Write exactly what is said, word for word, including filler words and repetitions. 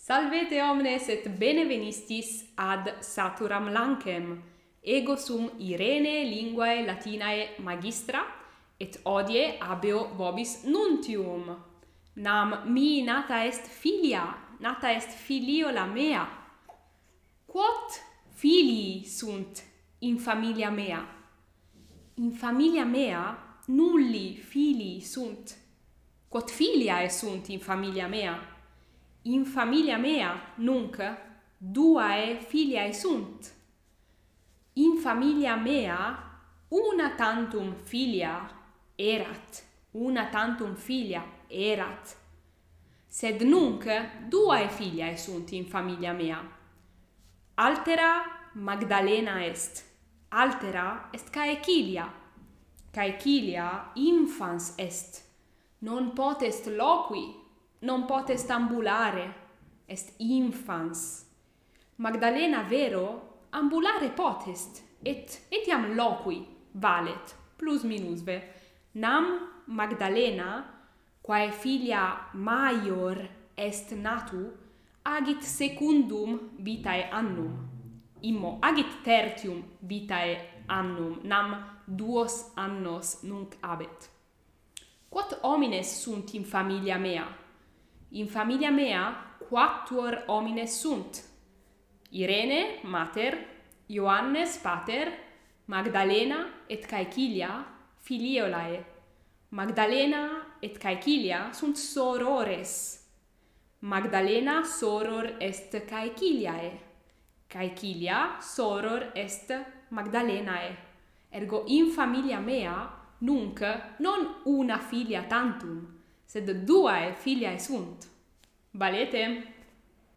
Salvete omnes et bene venistis ad Saturam Lancem. Ego sum Irene, linguae latinae magistra, et hodie habeo vobis nuntium. Nam mihi nata est filia, nata est filiola mea. Quot filii sunt in familia mea? In familia mea nulli filii sunt. Quot filiae sunt in familia mea? In familia mea nunc duae filiae sunt. In familia mea una tantum filia erat, una tantum filia erat. Sed nunc duae filiae sunt in familia mea. Altera Magdalena est, altera est Caecilia. Caecilia infans est. Non potest loqui, non potest ambulare, est infans. Magdalena vero ambulare potest, et etiam loqui valet, plus minusve. Nam Magdalena, quae filia maior est natu, agit secundum vitae annum. Immo agit tertium vitae annum, nam duos annos nunc habet. Quot homines sunt in familia mea? In familia mea quatuor homines sunt. Irene mater, Ioannes pater, Magdalena et Caecilia filiolae. Magdalena et Caecilia sunt sorores. Magdalena soror est Caeciliae. Caecilia soror est Magdalenae. Ergo in familia mea nunc non una filia tantum, sed duae filiae sunt. Valete?